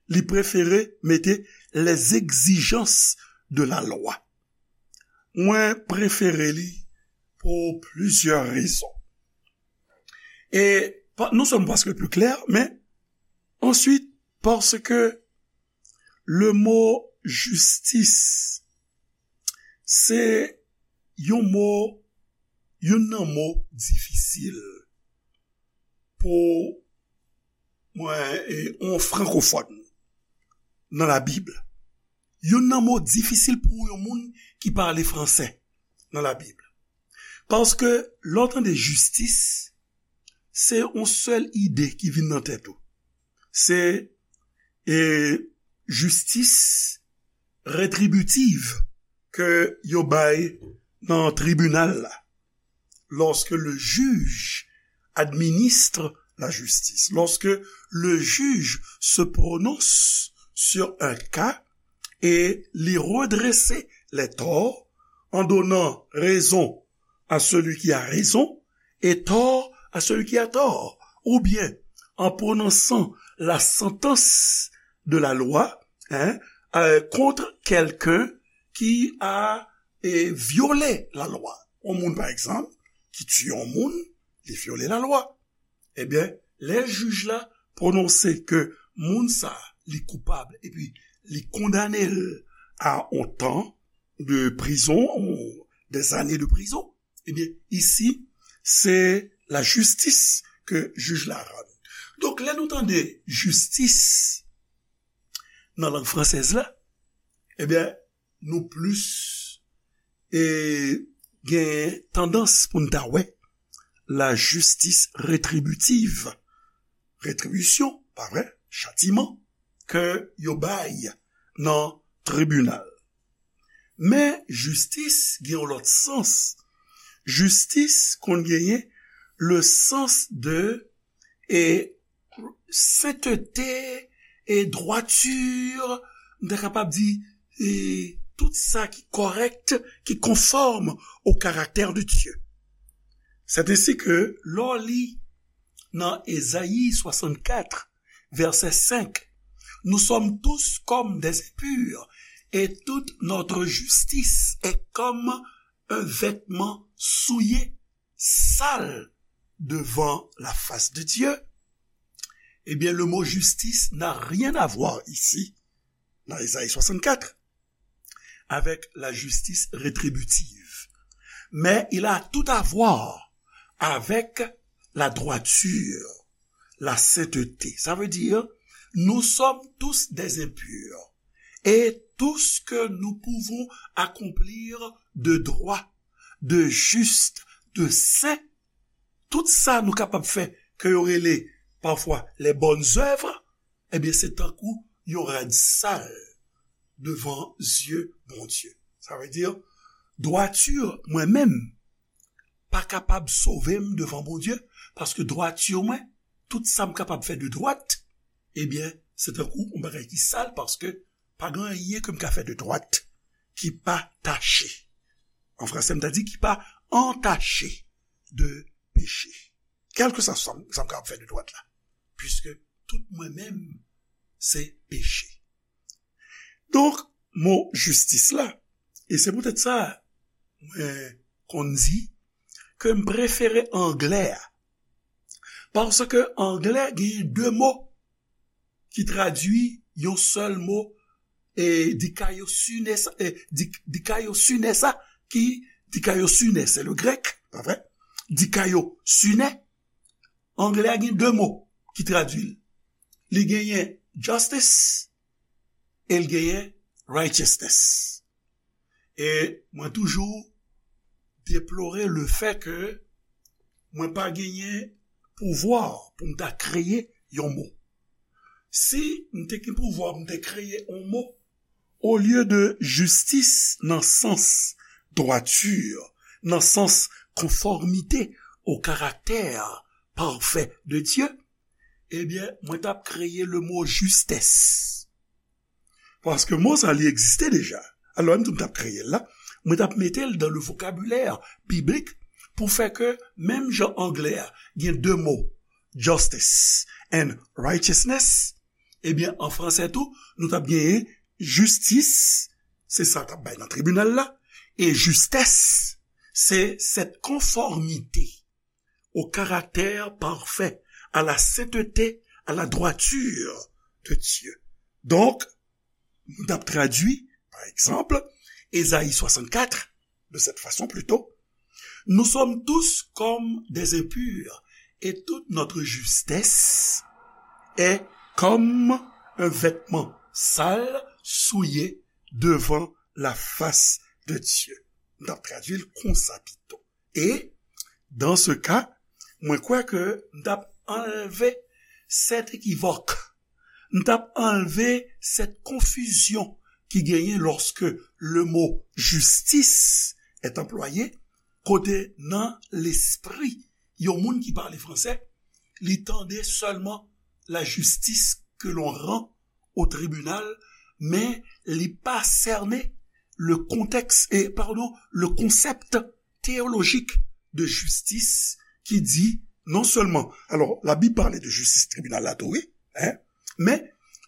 li prefere mete les exigences de la loi. Mwen prefere li pou plizyè rezon. E pa, non sèlman paske l pi klè, men answit paske le mo jistis se yon mo, youn nan mo difisil pou mwen, e, yon frankofòn nan Labib. Youn nan mo difisil pou yon moun ki pale fransè nan Labib. Paske lè w tande jistis, se yon sèl ide ki vin nan tèt ou. Se, e, jistis retribitiv ke yo bay nan tribinal la. Lorsque le juge administre la justice, lorsque le juge se prononce sur un cas et li redresser les torts en donnant raison à celui qui a raison et tort à celui qui a tort, ou bien en prononçant la sentence de la loi, hein, euh, contre quelqu'un qui a, eh, violé la loi. Yon moun, pa egzanp, ki tiye yon moun, li vyole lalwa. Ebyen, lè jij la pwononse ke moun sa li koupab epi li kondane l a yon tan de prizon, ou des années de prison, ebyen, isi, se lajistis ke jij la rann. Donk, lè nou tande jistis nan lang fransèz la, ebyen, nou plis e, gen tandans pou n ta wè lajistis retribitiv, retribisyon, pa vre, chatiman, ke yo bay nan tribinal. Men jistis gen yon lòt sans. Jistis konn genyen le sens de e sentete e dwati, m ta kapab di, e tout sa ki kòrèk, ki konfòm au caractère de Dieu. C'est ainsi que lè w li nan Ezayi swasannkat, vèsè senk, nous sommes tous comme des impurs, et toute notre justice est comme un vêtement souillé, sale devant la face de Dieu. Eh bien, le mot justice n'a rien à voir ici, dans Ésaïe soixante-quatre, avec la justice rétributive. Mais il a tout à voir avec la droiture, la sainteté. Ça veut dire, nous sommes tous des impurs. Et tout ce que nous pouvons accomplir de droit, de juste, de saint, tout sa nou kapab fè, ke yo rele pafwa les bonnes œuvres, ebyen, se tankou yon rad sal devan zye Bondye. Sa vle di, dwati mwen menm pa kapab sove m devan Bondye, paske dwati mwen, tout sa m kapab fè de dwat, ebyen, se tankou yon bagay ki sal, paske pa gen anyen ke m ka fè de dwat ki pa tache. An fransè, m ta di ki pa antache de peche. Kèlkeswa sa m, sa m kapab fè de dwat la. Piske tout mwen menm, se peche. Donk, mo jistis la, e se poutèt sa, mwen konn di ke m prefere anglè a. Paske anglè gen de mo ki tradui yon sèl mo, e dikaiosune sa, e di-, dikaiosune sa, ki dikaiosune, se le grèk, pa vre? Dikaiosune, anglè a gen de mo ki tradui l. Li genyen justice e l genyen righteousness. E mwen toujou deplore le fè ke mwen pa genyen pouvwa pou m ta kreye yon mo. Si m te gen pouvwa pou m te kreye yon mo, olye de jistis nan sans dwati, nan sans konfòmite au caractère parfait de Dieu, ebyen, mwen t ap kreye le mo justesse. Paske mo sa, li egziste deja. Alò, menm tou m t ap kreye l la, mwen t ap mete l dans le vocabulaire biblique pou fè ke, menm jan anglè a gen de mo, justice and righteousness, ebyen, an fransè tou, nou t ap genyen jistis, se sa t ap bay nan tribinal la, e justesse, c'est cette conformité au caractère parfait, à la sainteté, à la droiture de Dieu. Donk, nou t ap tradui, pa egzanp, Ezayi swasannkat, de cette façon plutôt, nous sommes tous comme des impurs, et toute notre justesse est comme un vêtement sale, souillé devant la face de Dieu. Nou t ap tradui l konsa pito. E, dans ce cas, mwen kwè ke m t ap anlve sèt ekivòk, m t ap anlve sèt konfizyon ki genyen lòske le mo justice est employé, kote nan lespri yon moun ki pale fransè, li tande sèlman la justice que l'on rend au tribunal, men li pa sène le contexte, et, pardon, le concept théologique de justice ki di non sèlman, alò, Labib pale de jistis tribinal la tou, wi, hein, men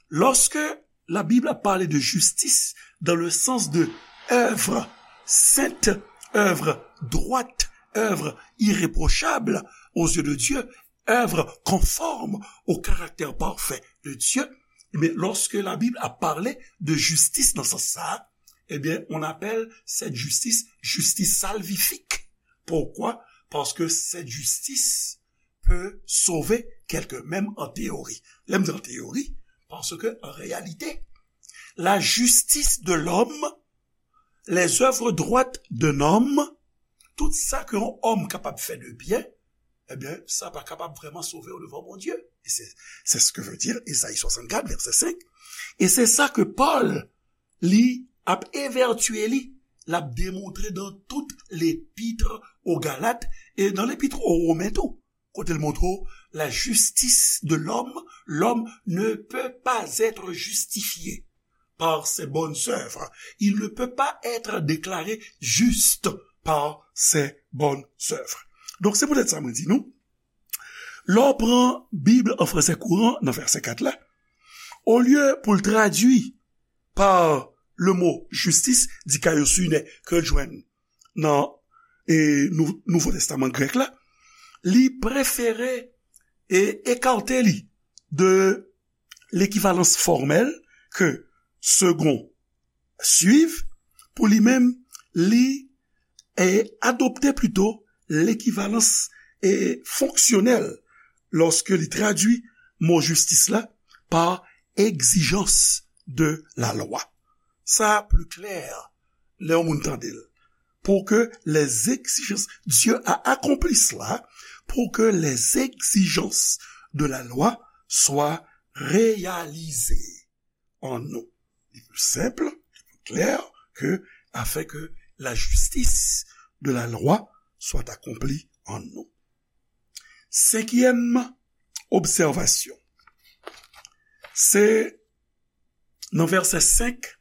lòske Labib la pale de jistis dans le sens de œuvre sainte, œuvre droite, œuvre irréprochable aux yeux de Dieu, œuvre conforme au caractère parfait de Dieu, ebyen, lorsque la Bible a parlé de justice dans ce sens-là, eh bien, on appelle cette justice justice salvifique. Pourquoi? Parce que cette justice peut sauver quelqu'un, même en théorie. Lè m di an teyori, paske an reyalite, la justice de l'homme, les œuvres droites d'un homme, tout sa ke yon òm kapab fè de byen, ebyen, sa pa kapab vrèman sove w devan Bondye. E se, se sa ke vle di Ezayi swasannkat, vèsè senk. E se sa ke Pòl, li, ap evètye li, l ap demontre dans toute l'épître aux Galates e dans l'épître aux Romains tou. Kote l montre w, la justice de l'homme, l'homme ne peut pas être justifié par ses bonnes œuvres. Il ne peut pas être déclaré juste par ses bonnes œuvres. Donk, se poutèt sa mwen di nou, lè w pran Bib an fransè kouran nan vèsè kat la, olye pou l tradui pa le mo justice, dikaiosune, ke l jwenn nan, e, Nou-, Nouvo Testaman grèk la, li prefere e ekate li de lekivalans fòmèl ke Segond suiv, pou li menm, li, e, adopte plito lekivalans, e, fonksyonèl lòske li tradui mo jistis la pa egzijans de la lwa. Sa pli klè lè yon moun tande l. Pour que les exigences, Dieu a accompli cela, pour que les exigences de la loi soient réalisées en nous. Li pli senp, li pli klè ke afin que la justice de la loi soit accomplie en nous. Senkyèm obsèvasyon. Se nan vèsè senk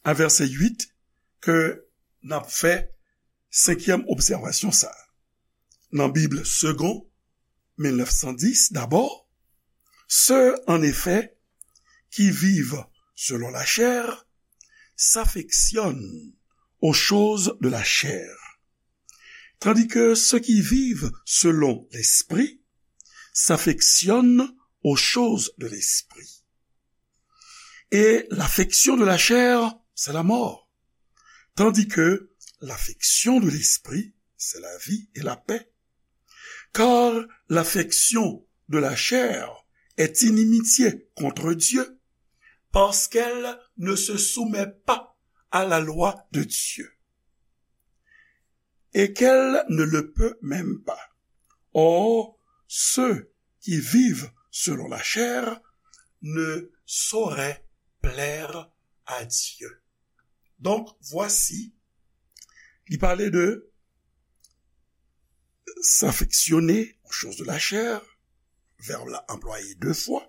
a vèsè uit ke n ap fè senkyèm obsèvasyon sa a. Nan Bib Segond mil nèf san dis, d'abord, ceux, en effet, qui vivent selon la chair s'affectionnent aux choses de la chair, tandis que ceux qui vivent selon l'Esprit s'affectionnent aux choses de l'Esprit. Et l'affection de la chair, c'est la mort, tandis que l'affection de l'Esprit, c'est la vie et la paix. Car l'affection de la chair est inimitié contre Dieu, parce qu'elle ne se soumet pas à la loi de Dieu, et qu'elle ne le peut même pas. Or, ceux qui vivent selon la chair ne sauraient plaire à Dieu. Donc, voici, li pale de s'affectionner aux choses de la chair, vèb la anplwaye de fwa,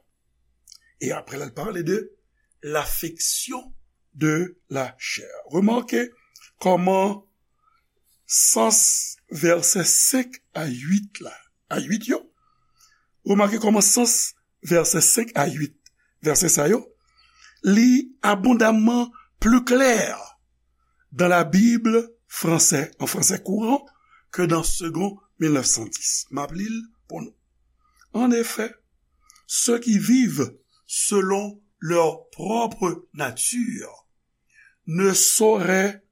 e apre la, li pale de l'affection de la chair. Remake kòman sans vèsè senk a uit la, a uit yo, remake kòman sans vèsè senk a uit, vèsè sa yo, li abondamman pli klè dans la Bible français, en français courant, que dans Segond mil nèf san dis. M ap li l pou nou. En effet, ceux qui vivent selon leur propre nature ne sauraient,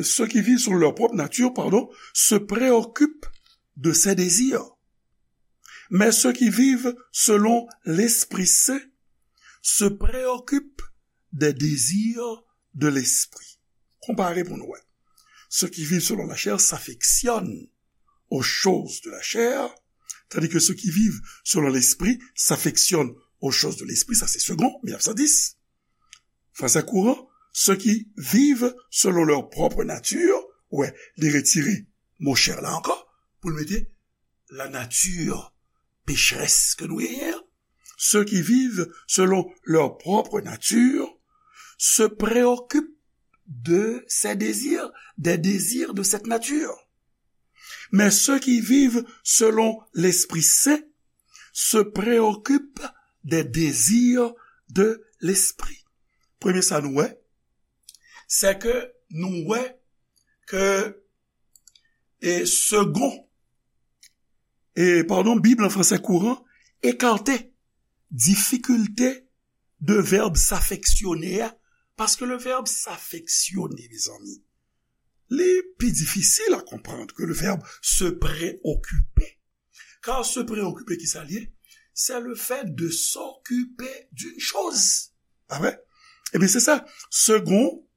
ceux qui vivent selon leur propre nature, pardon, se préoccupent de ses désirs. Mais ceux qui vivent selon l'Esprit Saint se préoccupent des désirs de l'esprit. Konpare pou nou wè. Ceux qui vivent selon la chair s'affectionnent aux choses de la chair, tandis que ceux qui vivent selon l'esprit s'affectionnent aux choses de l'esprit. Sa se Segond mil nèf san dis. Français courant, ceux qui vivent selon leur propre nature, wè, li retire mo chair la ankò, pou l mete la nature pécheresse ke nou genyen an. Ceux qui vivent selon leur propre nature se préoccupent de ces désirs, des désirs de cette nature. Mais ceux qui vivent selon l'Esprit Saint se préoccupent des désirs de l'Esprit. Premye sa nou wè, se ke nou wè ke e Segond e, padon, Bib an fransè kouran ekate difikilte de vèb s'affectionner a, paske le vèb s'affectionner, mezanmi, li pi difisil a konprann ke le vèb se preokipe. Kar se preokipe, ki sa l ye? C'est le fait de s'occuper d'une chose. Amen. Ebyen, se sa. Second,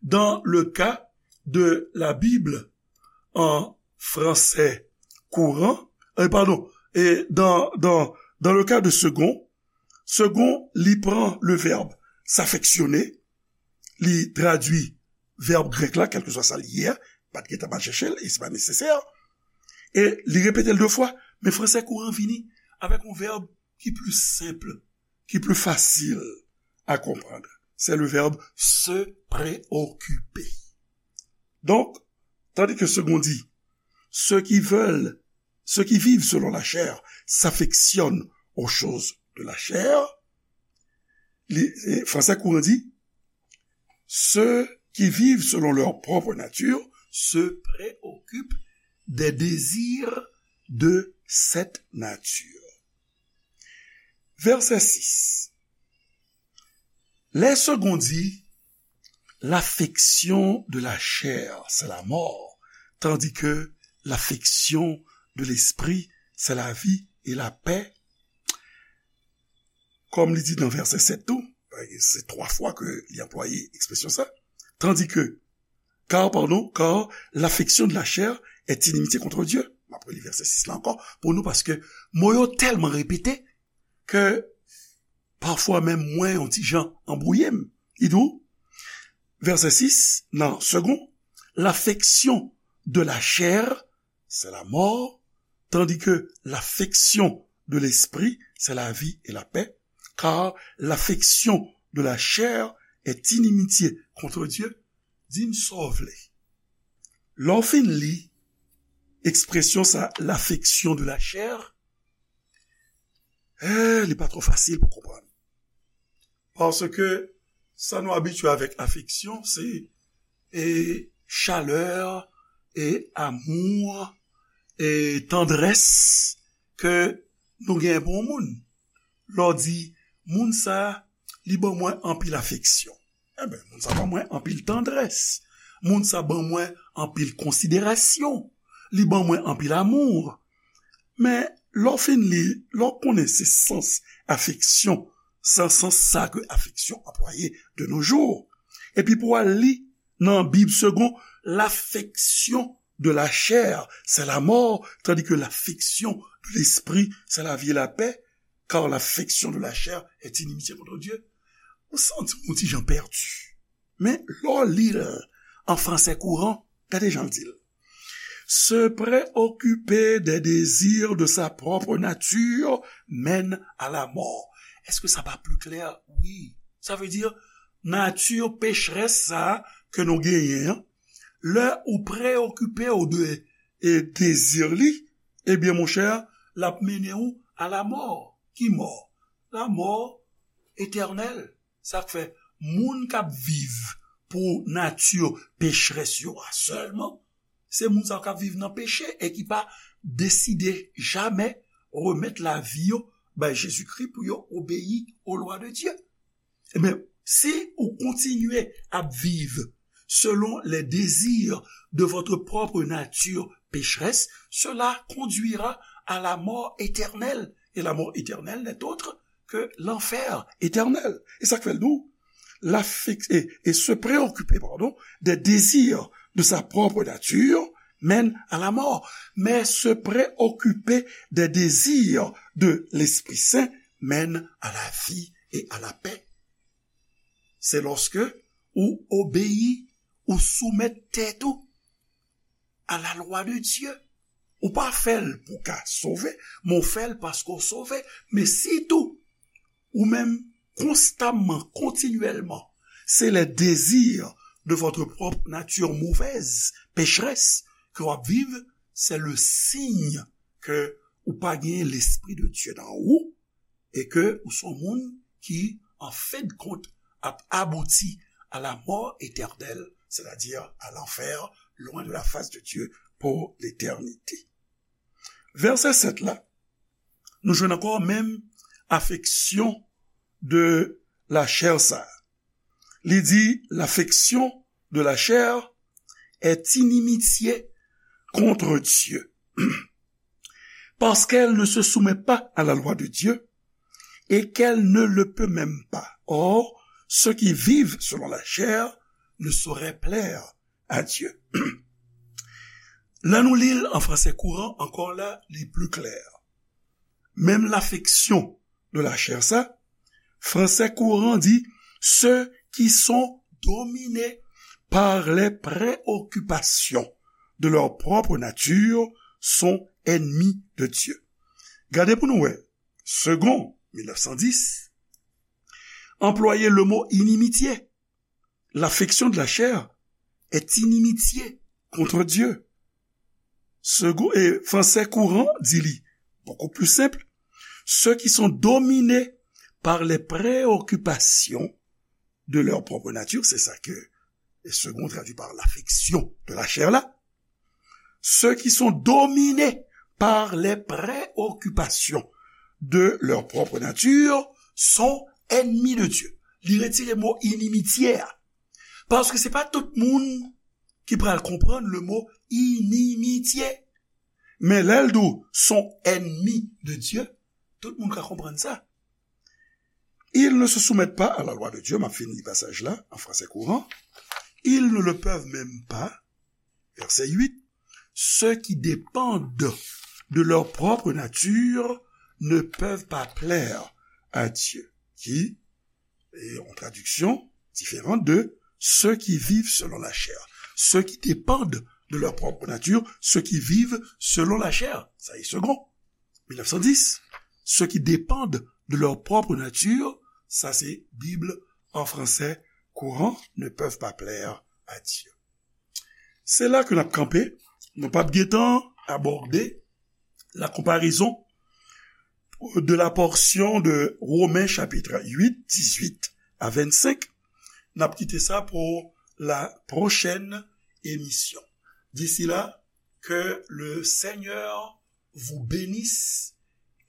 dans le cas de la Bible en français courant, euh, pardon, et dans, dans, dans le cas de second, second, li pran le verbe s'affectionner, li tradui vèb grèk la, kèlkeswa sa li ye a, pa t gentan al chèche l, e se pa nesesè, e li repete l de fwa, men fransè kouran vini avèk yon vèb ki pli senp, ki pli fasil a konprann. Se le verbe se preokipe. Donk, tandis que second dit, ceux qui veulent, ceux qui vivent selon la chair s'affectionnent aux choses de la chair, li, e, fransè kouran di, ceux qui vivent selon leur propre nature se préoccupent des désirs de cette nature. Verset six. Les seconds disent, l'affection de la chair, c'est la mort, tandis que l'affection de l'esprit, c'est la vie et la paix. Kòm li di nan vèsè sèt tou, se twa fwa ke li anplwaye ekspresyon sa, tandis que, car, pardon, car l'affection de la chair est inimitié contre Dieu. M ap reli vèsè sis la ankò pou nou, paske mo yo tèlman repete ke pafwa menm mwen yon ti jan anbwouye m. Li di w, vèsè sis, nan Second, l'affection de la chair, c'est la mort, tandis que l'affection de l'esprit, c'est la vie et la paix. Car l'affection de la chair est inimitié contre Dieu. Di m sa w vle. Lè w fin li ekspresyon sa, l'affection de la chair, eh, li pa twò fasil pou konprann. Paske sa nou abitye avèk afeksyon, se, e, chalè, e, amou, e, tandrès ke nou gen pou yon moun. Lè w di, moun sa, li ban mwen anpil afeksyon. Enben, moun sa ban mwen anpil tandrès. Moun sa ban mwen anpil konsiderasyon. Li ban mwen anpil amou. Men, lè w fin li, lè w konnen se sans afeksyon, se sans sa ke afeksyon anplwaye de nos jours. Epi pou w al li nan Bib Segond, l'affection de la chair, c'est la mort, tandis que l'affection de l'esprit, c'est la vie et la paix, car l'affection de la chair est inimitié contre Dieu. Ou santi w yon ti jan pèdi. Men, lè w li l an fransè kouran, gade jan l di l. Se préoccuper des désirs de sa propre nature mène à la mort. Èske sa pa pli klè? Wi. Sa vle di, nati pechrès sa a ke nou genyen an, lè ou preokipe w de, e, dezi li, ebyen, monchè, l ap mennen w a la mò. Ki mò? La mò etènèl. Sa k fè moun k ap viv pou nati pechrès yo a sèlman, se moun sa yo k ap viv nan peche e ki pa deside jamè remèt lavi yo bay Jezikri pou yo obeyi o lwa de Dye. Ebyen, si ou kontinye ap viv selon les désirs de votre propre nature pécheresse, cela conduira à la mort éternelle. Et la mort éternelle n'est autre que l'enfer éternel. E sa k fè l di w, l'affec-, et, et se préoccuper, pardon, des désirs de sa propre nature mène à la mort. Mais se préoccuper des désirs de l'Esprit Saint mène à la vie et à la paix. Se lòske ou obeyi, ou soumèt tèt ou a la lwa de Dye. Ou pa fè l pou w ka sove, men w fè l paske w sove. Men sitou, ou menm, konstamman, kontinyèlman, se les désirs de votre propre nature mauvaise, pécheresse, ke w ap viv, se le signe ke ou pa gen Lespri de Dye nan ou, e ke ou se yon moun ki, an fen de kont, ap abouti à la mort éternelle, c'est-à-dire à l'enfer, loin de la face de Dieu pour l'éternité. Vèsè sèt la, nou jwenn ankò menm afeksyon de lachè sa. Li di, l'affection de la chair est inimitié contre Dieu, parce qu'elle ne se soumet pas à la loi de Dieu et qu'elle ne le peut même pas. Or, ceux qui vivent selon la chair ne sauraient plaire à Dieu. Lè nou li l an fransè kouran, ankò la, li pli klè. Menm l'affection de la chair sa, fransè kouran di, ceux qui sont dominés par les préoccupations de leur propre nature sont ennemis de Dieu. Gade pou nou wè, Segond mil nèf san dis, anplwaye le mo inimitié. L'affection de la chair est inimitié contre Dieu. Segond, e fransè kouran di li, beaucoup plus simple, ceux qui sont dominés par les préoccupations de leur propre nature, c'est ça que Segond traduit par l'affection de la chair la, ceux qui sont dominés par les préoccupations de leur propre nature sont ennemis de Dieu. Li retire mo inimitié a. Paske se pa tout moun ki pral konprann le mo inimitié. Men lè l di w sont ennemis de Dieu, tout moun ka konprann sa. Ils ne se soumettent pas à la loi de Dieu, m ap fin li pasaj la, an fransè kouran. Ils ne le peuvent même pas. Verset huit, ceux qui dépendent de leur propre nature ne peuvent pas plaire à Dieu. Qui est en traduction différente de ceux qui vivent selon la chair. Ceux qui dépendent de leur propre nature, ceux qui vivent selon la chair. Ça est Segond mil nèf san dis, ceux qui dépendent de leur propre nature, sa se Bib an fransè kouran, ne peuvent pas plaire à Dieu. Se la ke n ap kanpe, nou p ap gentan abòde la comparaison de la portion de Romains chapitre huit, dix-huit à vingt-cinq. N ap kite sa pou la prochaine émission. D'ici là, que le Seigneur vous bénisse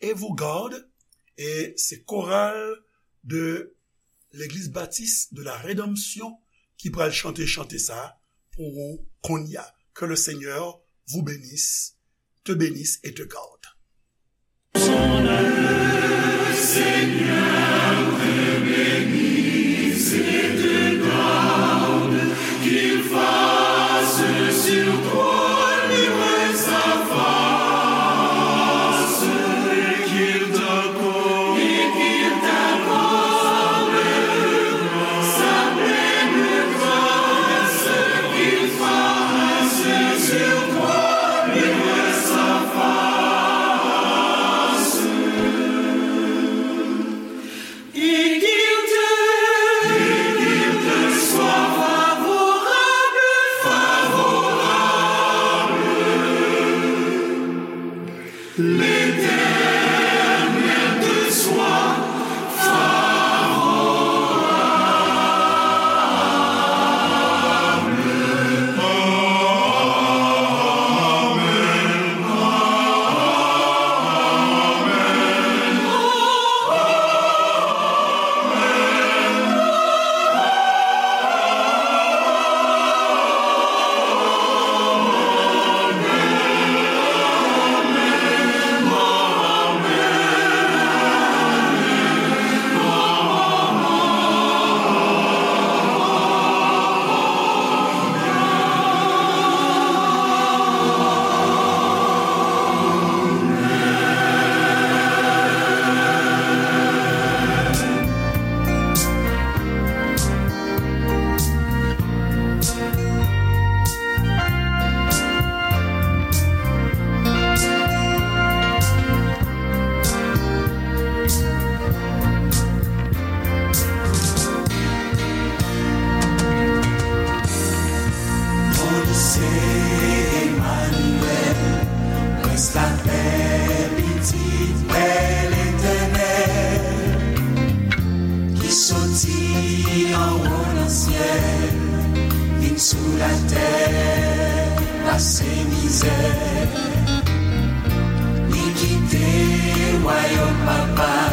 et vous garde. E se koral de Legliz Batis de la Redanmsyon ki pral chante chante sa pou ou kounye a. Que le Seigneur vous bénisse, te bénisse et te garde. Bondye se Emmanuel, prens lapè, pitit pè Letènèl, ki soti anwo nan syèl, vin sou latè, pase mizè. Kite wayòm Papa